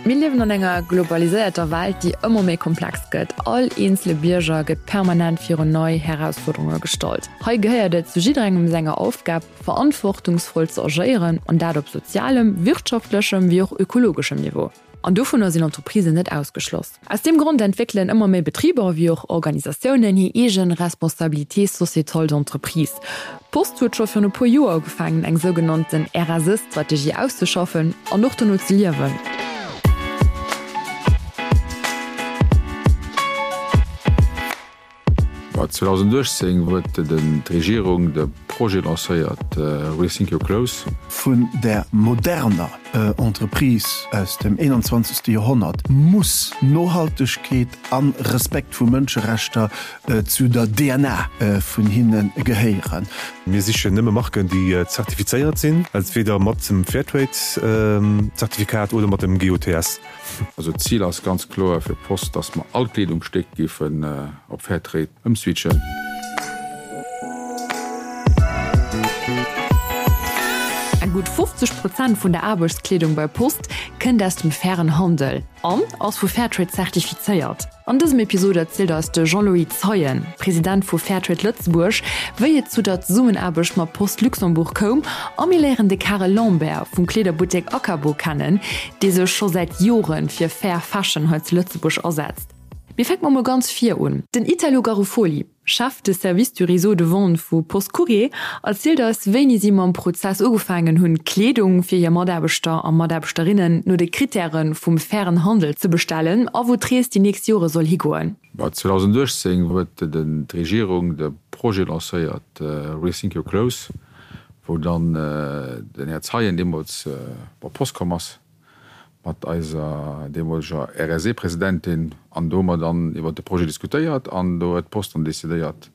Mir liewen an enger globaliséierter Welt, déi ëmmer méi komplex gëtt. All eenzele Bierger gëtt permanent virun nei Herausfuerderunge gestallt. Hei gehéiert et zu jidderengem senger Aufgab, verantwortungsvoll ze agéieren, an dat op sozialem, wirtschaftlechem wéi och ökologeschem Niveau. An dovunner sinn Entreprisen net ausgeschloss. Aus deem Grond entwéckelen ëmmer méi Betriber wéi och Organisatiounen hir eegen Responsabilité sociétale d'entreprise. D'Post huet scho virun e puer Joer ugefaangen eng sougenannten RSE-Strategie auszeschaffen an och dono ze liewen. Mä 2018 huet d'Regierung de Projet lancéiert Rethink Your Clothes. Vun der moderner Entreprise aus dem 21. Joerhonnert muss Nohaltegkeet a Respekt vu Mënscherechter zu der DNA vun hinne gehéieren. Mir sichen nëmme Marken, déi zertifizéiert sinn, entweder mat dem Fairtrade-Zertifikat oder mat dem GOTS. Also d'Zil ass ganz kloer fir d'Post, dass mer all Kleedungsstéck géifen op Fairtrade ëmswitchen. Eng gutt 50 Prozent vun der Aarbechtskleedung bei Post kënnt aus dem fairen Handel an ass vu Fairtrade zertifizéiert. An dësem Episod erzielt eis de Jean-Louis Zeien, President vu Fairtrade Lëtzebuerg, wéi et zu der Zesummenaarbecht mat Post Luxembourg koum a mir léieren de Karel Lambert vum Kleederbuttek Akabo kennen, dee sech scho säit Jore fir Fair Fashion hei zu Lëtzebuerg asetzt. Mir fänke mer mol ganz vir un. Den Italo Garofoli, Chef de Service du Réseau de Vente vu Post Courrier, erzielt eis, wéini si mam Prozess ugefaangen hunn, Kleedung fir hir Mataarbechter a Mataarbechterinnen no de Krittäre vum fairen Handel ze bestellen a wou d'Rees déi nächst Jore soll higoen. 2018 huet d'Regierung de Projet lancéiert Rethink Your Clothes, wou dann den Här Zeien deemools op Post komm ass mat eiser deemoleger RSE-Presidentin an do hu mer dann iwwert de Projet diskutéiert an do huet d'Post dann decidéiert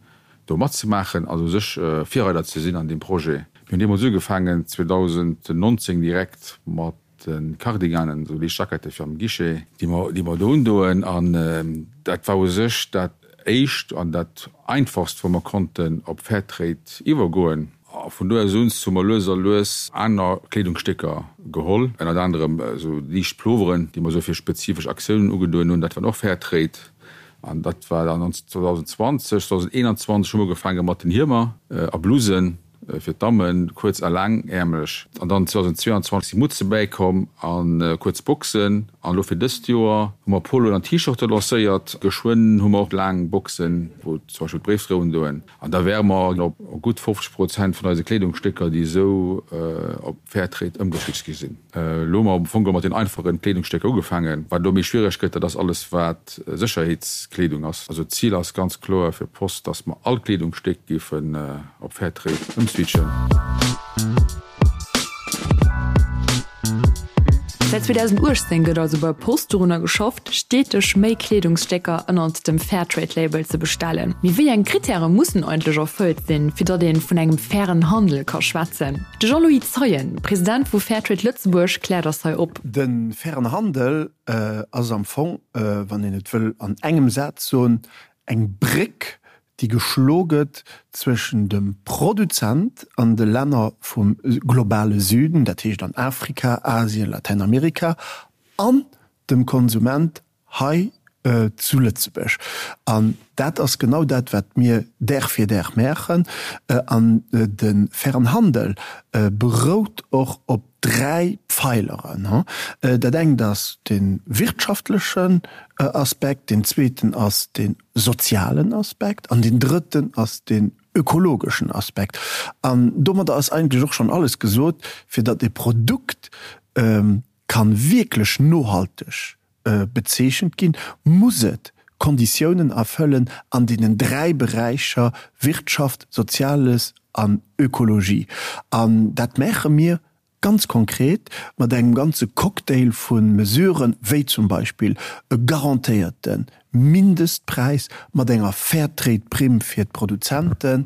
do matzemaachen, also u sech Virreider ze sinn an deem Projet. Mir hunn deemools ugefaangen 2019 direkt mat de Cardiganen, esou liicht Jackette fir am Guichet, déi mer, déi mer do undoen. An dat war u sech dat Éischt an dat Einfachst, wou mer konnten op Fairtrade iwwergoen. A vun do aus un hu mer lues a lues aner Kleedungsstécker geholl, ënnert anerem esou liicht Ploveren, déi mer esou fir spezifesch Aktiounen ugedoen hunn. Dat waren och Fairtrade. An dat war dann 2020. 2021 hu mer ugefaange mat den Hiemer a Blusen. Fir d'Dammen kuerz a laangäermlech. An dann 2022 si Mutze bäikomm a kuerz Boxen. An elo fir dëst Joer hu mer Poloen an T-Shirte lancéiert. Geschwënn hu mer och laang Boxen, wou zum Beispill d'Bréifdréi undoen. An da wäre mer op gutt 50 Prozent vun eise Kleedungsstécker, déi esou op Fairtrade ëmgeswitcht gi sinn. Elo hu mer am Fong geholl mat den einfachen Kleedungsstécker ugefaangen. Wat elo méi schwiereg gëtt, dat ass alles wat Sécherheetskleedung ass. Also d'Zil ass ganz kloer fir d'Post, dass mer all Kleedungsstéck géifen op Fairtrade ëmswitchen. Säit 2018 gëtt also bei Post dorunner geschafft, steeteg méi Kleedungsstécker ënnert dem Fairtrade-Label ze bestellen. Mee wéi eng Krittäre mussen eigentlech erfëllt sinn, fir datt ee vun engem fairen Handel ka schwätzen? De Jean-Louis Zeien, President vu Fairtrade Lëtzebuerg, kläert eis hei op. De fairen Handel ass am Fong, wann een et wëll an engem Saz soen, eng Bréck, déi geschlo gëtt zwëschen dem Produzent an de Länner vum globale Süden, dat heescht an Afrika, Asien, Latäinamerika, an dem Konsument hei zu Lëtzebuerg. An dat ass genau dat, wat mir Dag fir Dag maachen. An de fairen Handel berout och op dräi Pfeileren. Dat engt ass de wirtschaftlechen Aspekt, deen zweeten ass de sozialen Aspekt an deen drëtten ass den ökologeschen Aspekt. An domadder ass eigentlech och schonn alles gesot, fir datt e Produkt kann wierklech nohalteg bezeechent ginn, muss et Konditiounen erfëllen an deenen dräi Beräicher Wirtschaft, Soziales an Ökologie. An dat maache mir ganz konkret mat engem ganze Cocktail vu Mesuren, wéi zum Beispill e garantéierte Mindestpräis mat enger Fairtrade-Primm fir d'Produzenten,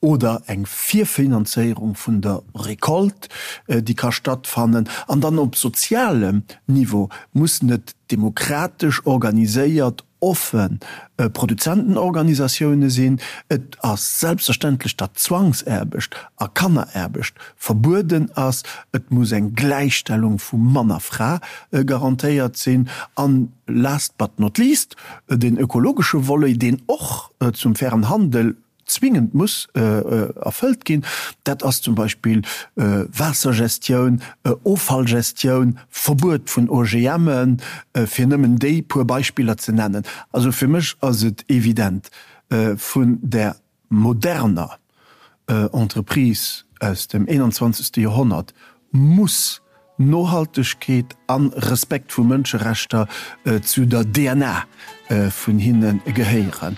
oder eng Virfinanzéierung vun der Récolte, déi ka stattfannen. An dann op sozialem Niveau mussen et demokratesch organiséiert. offen Produzentenorganisatioune sinn. Et ass selbstverständlech, datt Zwangsaarbecht a Kanneraarbecht verbueden ass. Et muss eng Gläichstellung vu Mann a Fra garantéiert sinn. An last but not least, den ökologesche Volet, deen och zum fairen Handel zwingend muss erfëllt ginn, dat ass zum Beispill Waassergestioun, Offallgestioun, Verbuet vun OGMen, fir nëmmen déi puer Beispiller ze nennen. Also fir mech ass et evident, vun der moderner Entreprise aus dem 21. Joerhonnert muss Nohaltegkeet an Respekt vu Mënscherechter zu der DNA vun hinne gehéieren.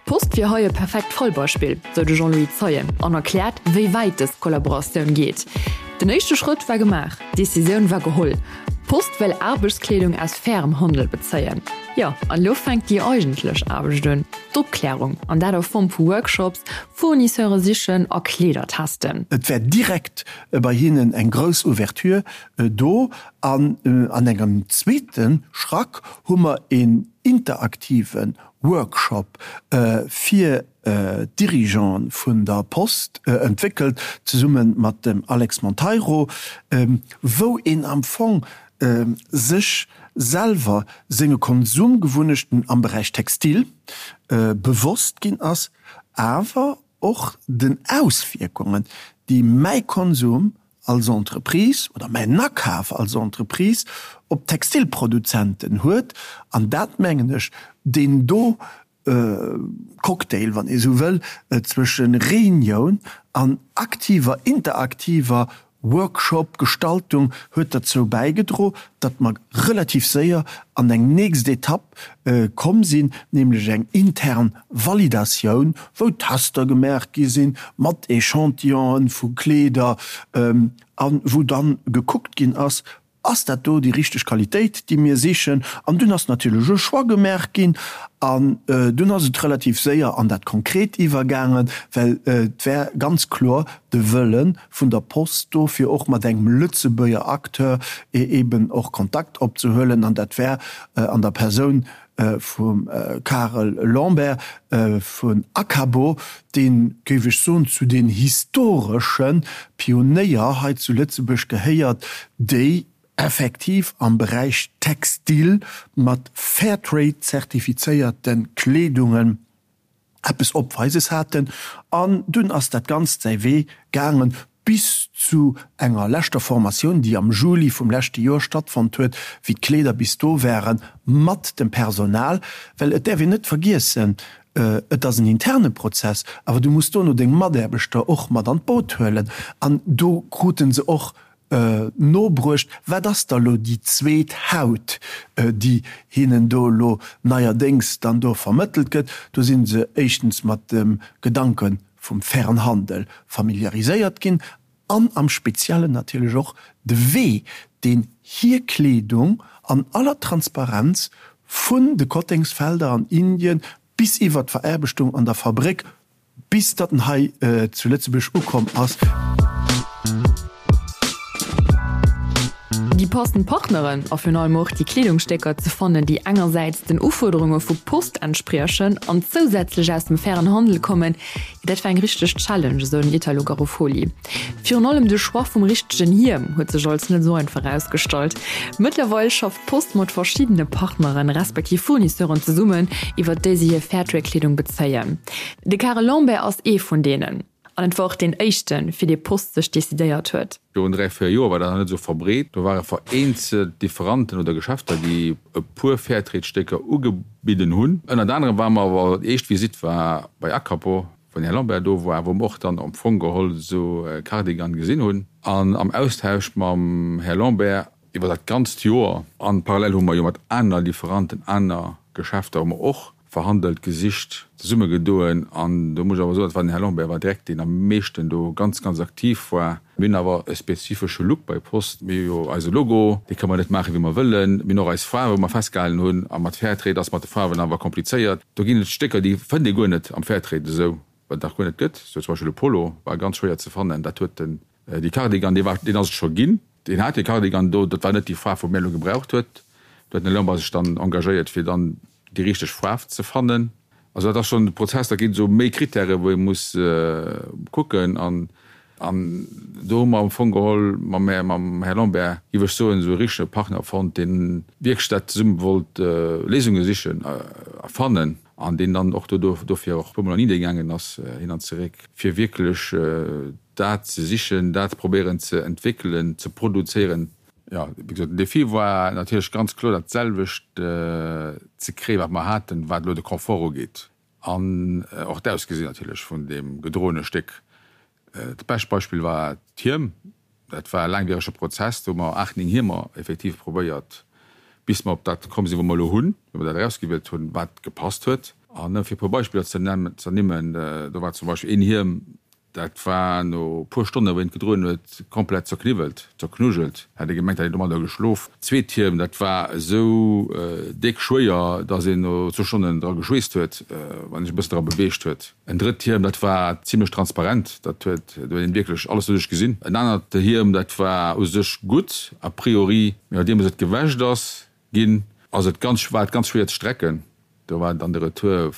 D'Post wier hei e perfekt Fallbeispill, sou de Jean-Louis Zeien an erkläert, wéi wäit dës Kollaboratioun geet. Den éischte Schrëtt war gemaach, d'Decisioun war geholl, D'Post wëll Aarbechtskleedung aus fairem Handel bezéien. Jo, an elo fänkt déi eigentlech Aarbecht un, d'Opklärung, an dat a Form vu Workshops, Fournisseure sichen a Kleeder testen. Et war direkt bei hinnen eng grouss Ouverture do an an engem zweete Schrack hu mer een interaktive Workshop fir d'Dirigeante vun der Post entwéckelt, zesumme mat dem Alex Monteiro, wou een am Fong sech selwer senge Konsumgewunnechten am Beräich Textil bewosst ginn ass, awer och den Auswierkungen, déi mäi Konsum als Entreprise oder mäin Akaf als Entreprise op d'Textilproduzenten huet. An dat, mengen ech, deen do Cocktail, wann ee sou wëll, zwësche Reunioun an aktiver, interaktiver Workshop-Gestaltung huet derzou bäigedro, datt mer relativ séier an eng nächst Etapp komm sinn, nämlech eng intern Validatioun, wou Tester gemaach gi sinn mat Echantillonen vu Kleeder a wou dann gekuckt ginn ass, Ass dat do déi richteg Qualitéit, déi mir sichen? An dunn ass natierlech e Choix gemaach ginn an dunn ass et relativ séier an dat Konkret iwwergaangen, well et war ganz kloer de Wëlle vun der Post do, fir och mat engem Lëtzebuerger Acteur eeben och Kontakt opzehuelen. An dat war an der Persoun vum Karel Lambert vun Acabo, deen, géif ech soen, zu den historesche Pionéier hei zu Lëtzebuerg gehéiert, déi effektiv am Beräich Textil mat Fairtrade-zertifizéierte Kleedungen eppes Opweises haten. An dunn ass dat Ganzt säi Wee gaangen bis zu enger leschter Formatioun, déi am Juli vum leschte Joer stattfonnt huet, wéi d'Kleeder bis do waren, mat dem Personal. Well et däerf een net vergiessen, et ass en interne Prozess, awer du muss dono deng Mataarbechter och mat an d'Boot huelen. An do krute se och nobruecht, wat ass da lo déi zweet Haut, déi hinnen do elo neierdéngs dann do vermëttelt gëtt. Do si se éischtens mat dem Gedanke vum fairen Handel familiariséiert ginn an am Speziellen natierlech och de Wee, deen hir Kleedung an aller Transparenz vun de Kottengsfelder an Indien bis iwwert d'Veraarbechtung an der Fabréck Bis datt en hei zu Lëtzebuerg ukomm ass. Déi passend Partneren a virun allem och déi Kleedungsstécker ze fannen, déi engersäits den Ufuerderunge vu Post entspriechen an zousätzlech aus dem fairen Handel kommen, jo dat war eng richteg Challenge, esou den Italo Garofoli. Virun allem de Choix vum richtegen Hiem huet sech als net esou einfach erausgestallt. Mëttlerweil schafft d'Post mat verschiddene Partneren, respektiv Fournisseuren zesummen, iwwer déi se hir Fairtrade-Kleedung bezéien. De Karel Lambert ass ee vun deenen. An et war och deen éischten, fir dee Post sech decidéiert huet. Virun 3, 4 Joer war dat nach net esou verbreet. Do ware vereenzelt Differanten oder Geschäfter, déi e puer Fairtrade-Stécker ugebidden hunn. Ënnert anerem ware mer awer, déi éischt Visitt war bei Acapo, wou den Här Lambert do war, wou mer och dann am Fong geholl esou e Cardigan gesinn hunn. An am Austausch mam Här Lambert iwwer dat ganzt Joer, an parallel hu mer jo mat aner Lieferanten, aner Geschäfter hu mer och verhandelt, gesicht, zesummegedoen. An do muss ech awer soen, dat war den Här Lambert war direkt deen am meeschten do ganz, ganz aktiv war. Mir hunn awer e spezifesche Look bei Post. Mir hu jo eise Logo, dee kënne mer net maachen, wéi mer wëllen. Mir hunn och eis Faarwe, wou mer festgehalen hunn. A mat Fairtrade ass mat de Faarwen awer komplizéiert. Do ginn et Stécker, déi fënnt ee guer net am Fairtrade esou, wat et nach guer net gëtt. Sou zum Beispill e Polo war ganz schwéier ze fannen. Dat huet den, dee Cardigan, dee war, deen ass et scho ginn. Deen hat dee Cardigan do, dat war net déi Faarf, wou mir elo gebraucht huet. Do huet den Här Lambert sech dann engagéiert, fir dann déi richteg Faarf ze fannen. Also dat ass schonn de Prozess, da ginn et esou méi Krittäre wou ee muss kucken. An an do hu mer am Fong geholl mam Här mam Här Lambert, géif ech soen, esou e richtege Partner fonnt, deen wierklech dat zesumme wollt Léisunge sichen a fannen an deen dann och do dofir och e puermol an Indien gaangen ass, hin an zeréck, fir wierklech dat ze sichen, dat probéieren ze entwéckelen, ze produzéieren. Jo, wéi gesot, den Défi war natierlech ganz kloer dat selwecht ze kréien, wat mer haten, wat elo de Confort ugeet an och d'Ausgesinn natierlech vun deem gedroene Stéck. Dat bescht Beispill war d'Hiem. Dat war e laangwierege Prozess, do hu mer aacht, néng Hiemer effektiv probéiert, bis mer op dat komm sinn, wou mer elo hunn, wou mer dat erausgewielt hunn, wat gepasst huet. An nëmme fir e puer Beispiller ze ernimmen, do war zum Beispill een Hiem, Dat war no puer Stonnen, wou een et gedroen huet, komplett zerkniwwelt, zerknujelt. Hätt ee gemengt, hätt een domadder geschlof. D'zweet Hiem, dat war esou déck schwéier, dass een no zwou Stonnen dra geschweesst huet, wann een sech e bëssen dra beweegt huet. En drëtt Hiem, dat war zimlech transparent, dat huet, do huet een wierklech alles doduerch gesinn. En anert Hiem, dat war u sech gutt, a priori, mee nodeems et gewäscht ass ginn, ass et ganz, war et ganz schwéier ze strecken. Do war dann de Retour,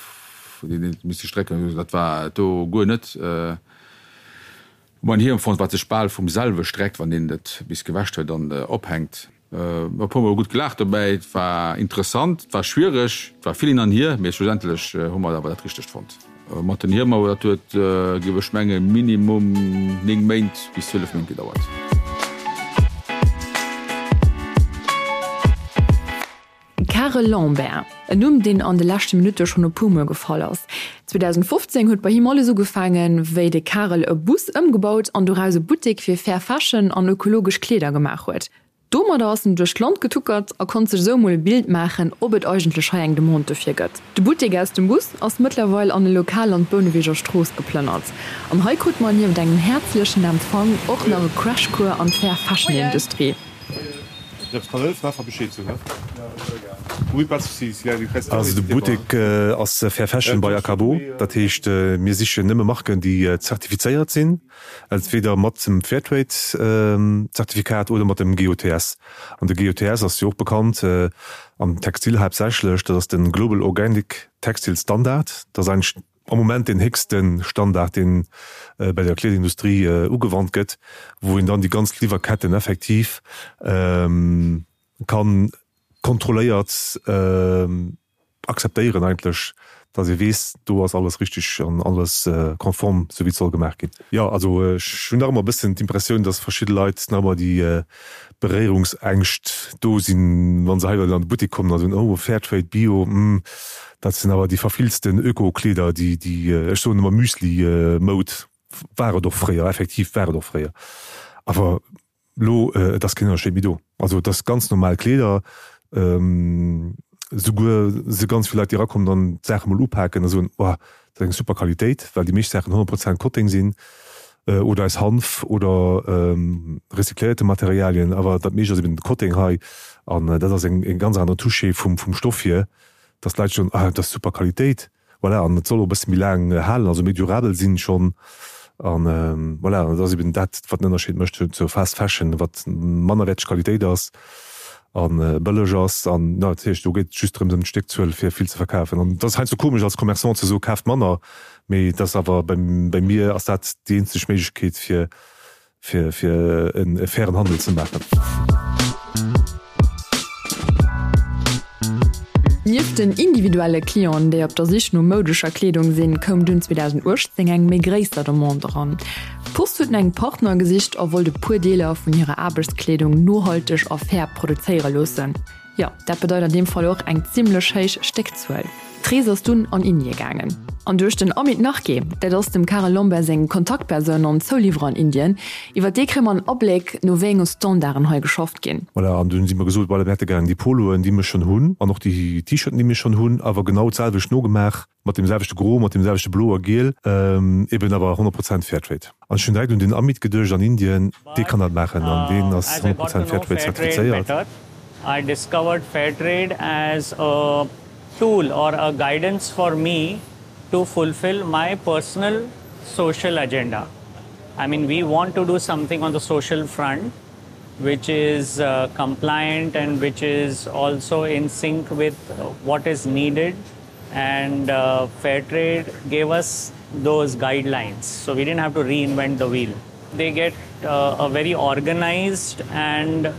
deen een misste strecken, dat war do guer net. Hu mer en Hiem fonnt, wat sech bal vum selwe streckt, wann een et bis gewäscht huet an ophänkt. E puer mol gutt gelaacht dobäi, et war interessant, et war schwiereg, et war vill hin an hier, mee schlussendlech hu mer awer dat Richtegt fonnt. Mat den Hiemer, dat huet, géif ech mengen, minimum 9 Méint bis 12 Méint gedauert. Karel Lambert, en Numm, deen an de leschte Minutte schonn e puer Mol gefall ass. 2015 huet bei him alles ugefaangen, wéi de Karel e Bus ëmgebaut an doraus e Buttek fir fair Fashion an ökologesch Kleeder gemaach huet. Domadder ass en duerch d'Land getuckert a konnt sech esou emol e Bild maachen, ob et eigentlech hei eng Demande dofir gëtt. De Buttek aus dem Bus ass mëttlerweil an e Lokal an d'Bouneweger Strooss geplënnert. An hei krut mer nieft engem häerzlechen Empfang och nach e Crashcours an d'Fair Fashion Industrie. Also de Buttek ass Fair Fashion by Akabo, dat heescht mir sichen nëmme Marken déi zertifizéiert sinn, entweder mat dem Fairtrade Zertifikat oder mat dem GOTS. An de GOTS ass jo och bekannt am Textil haaptsächlech, dat ass de Global Organic Textile Standard, dat ass eigentlech am Moment deen héchste Standard, deen bei der Kleederindustrie ugewannt gëtt, wou een dann déi ganz Liwwerketten effektiv ka kontrolléiert akzeptéieren eigentlech, dass ee weess, do ass alles richtig an alles konform, sou wéi et soll gemaach ginn. Jo, also ech hunn nach ëmmer e bëssen d'Impressioun, dass verschidde Leit nach ëmmer déi Beréierungsängscht do sinn, wa se hei an de Buttek kommen a soen, oh Fairtrade, Bio, hm, dat sinn awer déi verfilzten Öko-Kleeder, déi, déi, ech soen ëmmer Müsli-Moud, war et och fréier, effektiv war et och fréier, awer elo, et ass keen Ënnerscheed méi do. Also et ass ganz normal Kleeder, souguer si ganz vill Leit, déi erakommen an d'Saache mol upaken a soen, oh, dat ass eng super Qualitéit, well déi meescht Saachen 100 Prozent Kotteng sinn oder aus Hanf oder recycléierte Materialien, awer dat meescht ass eben de Kotteng hei an dat ass eng ganz aner Touche vum Stoff hier, dass d'Leit soen, ah, dat ass super Qualitéit. Voilà, an et soll och e bësse méi laang halen, also méi durabel sinn schonn. An voilà, dat ass eben dat, wat den Ënnerscheed mécht zur Fast Fashion, wat mannerwäerteg Qualitéit ass a bëlleg ass. An jo, dat heescht, do geet et just drëms ëm d'Stéckzuel, fir vill ze verkafen. An et ass heiansdo komesch als Commerçant ze soen, kaaft manner, mee et ass awer, bei mir ass dat déi eenzeg Méiglechkeet, fir fir fir e fairen Handel ze maachen. Nieft den individuelle Clienten, déi op der Sich no moudescher Kleedung sinn, koum dunn 2018 eng méi gréisser Demande eran. D'Post huet no engem Partner gesicht a wollt e puer Deeler vun hirer Aarbechtskleedung nohalteg a fair produzéiere loossen. Jo, dat bedeit an deem Fall och eng zimmlech héich Stéckzuel. D'Rees ass dunn an Indie gaangen. An duerch den Amit Narke, dat ass dem Karel Lambert seng Kontaktpersoun an Zouliwwerer an Indien, iwwer dee kréie mer en Abléck, no wéi enge Standarden hei geschafft ginn. Voilà, an dunn si mer gesot, voilà, mir hätte gären déi Poloen, déi mir schonn hunn, an och déi T-Shirten, déi mir schonn hunn, awer genau d'selwecht nogemaach, mat deem selwechte Gro, mat deem selwechte Blo a Giel, eben awer 100 Prozent Fairtrade. An ech hunn direkt un den Amit geduecht an Indien, dee kann dat maachen an deen ass 100 Prozent Fairtrade zertifizéiert. I discovered Fairtrade as a tool or a guidance for me to fulfill my personal social agenda. I mean we want to do something on the social front. which is uh, compliant and which is also in sync with what is needed. And uh, Fairtrade gave us those guidelines. So we didn't have to reinvent the wheel. They get uh, a very organized and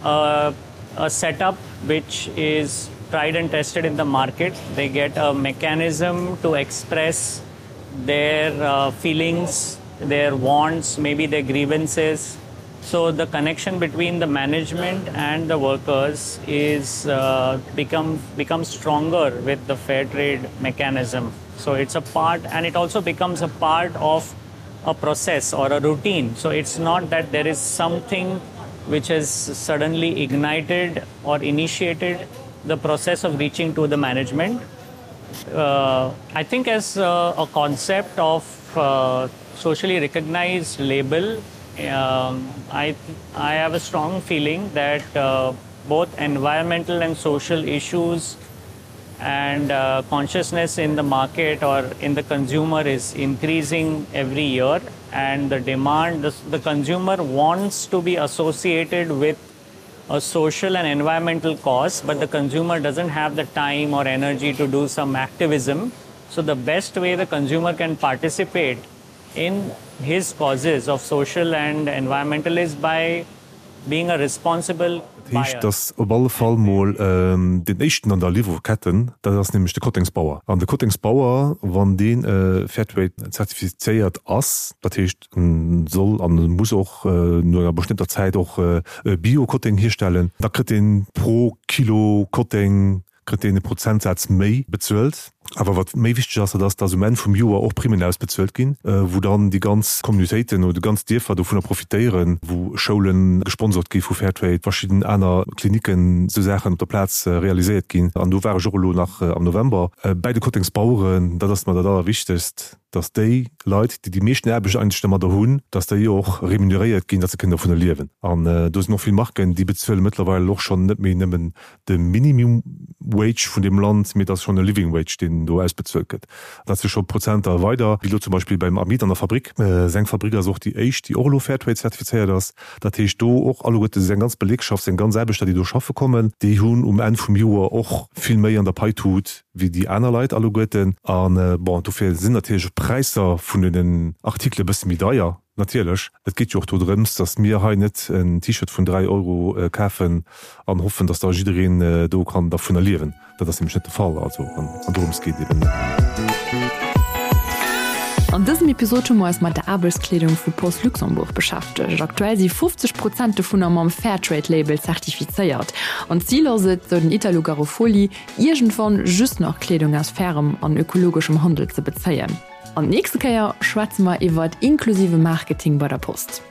uh, a setup which is tried and tested in the market. They get a mechanism to express their uh, feelings, their wants, maybe their grievances. So the connection between the management and the workers is uh, become become stronger with the fair trade mechanism. So it's a part and it also becomes a part of a process or a routine. So it's not that there is something which has suddenly ignited or initiated the process of reaching to the management. Uh, I think as a, a concept of uh, socially recognized label, um, I, I have a strong feeling that uh, both environmental and social issues and uh, consciousness in the market or in the consumer is increasing every year and the demand the, the consumer wants to be associated with a social and environmental cause but the consumer doesn't have the time or energy to do some activism so the best way the consumer can participate in his causes of social and environmental is by being a responsible Dat heescht, datt op alle Fall mol deen éischten an der Liwwerketten, dat ass nämlech de Kottengsbauer. An de Kottengsbauer, wann dee Fairtrade zertifizéiert ass, dat heescht, en soll an e muss och no enger bestëmmter Zäit och Bio-Kotteng hierstellen, da kritt deen pro Kilo Kotteng kritt deen e Prozentsaz méi bezuelt. Awer wat méi wichteg ass, dat ass, dass um Enn vum Joer och Primmen ausbezuelt ginn, wou dann déi ganz Communautéiten oder déi ganz Dierfer dovunner profitéieren, wou Schoule gesponsort gi vu Fairtrade, verschidden aner Klinicken, esou Saachen op der Plaz realiséiert ginn. An do war ech och elo nach am November bäi de Kottengsbaueren. Dat ass mer dat Allerwichtegst, dass déi Leit, déi déi meeschten Aarbecht eigentlech domadder hunn, dass déi och remuneréiert ginn, dass se kënnen dovunner liewen. An do sinn och vill Marken, déi bezuele mëttlerweil och schonn net méi nëmmen de Minimum Wage vun deem Land, mee et ass schonn e Living Wage, deen do ausbezuelt gëtt. Dat si scho Prozenter weider, wéi elo zum Beispill beim Amit an der Fabrik. Seng Fabrik ass och déi éischt, déi och elo Fairtrade zertifizéiert ass. Dat heescht do och alleguerte seng ganz Belegschaft, seng ganz Aarbechter, déi do schaffe kommen, déi hunn um Enn vum Joer och vill méi an der Paitut wéi déi aner Leit alleguerten. A bon, dofir sinn natierlech och d'Präisser vun deenen Artikele bësse méi deier. Natierlech, et geet jo och dodrëms, datt mir hei net en T-Shirt vun 3 Euro kafen an hoffen, datt da jiddereen do kann dervunner liewen. Dat ass nämlech net de Fall. Also, an dorëms geet et eben net. An dësem Episod hu mer eis mat der Aarbechtskleedung vu Post Luxembourg beschäftegt. Aktuell si 50 Prozent dovunner mam Fairtrade-Label zertifizéiert. An d'Zil ass et, sou den Italo Garofoli, iergendwann just nach Kleedung aus fairem an ökologeschem Handel ze bezéien. An d'nächste Kéier schwätze mer iwwert inklusive Marketing bei der Post.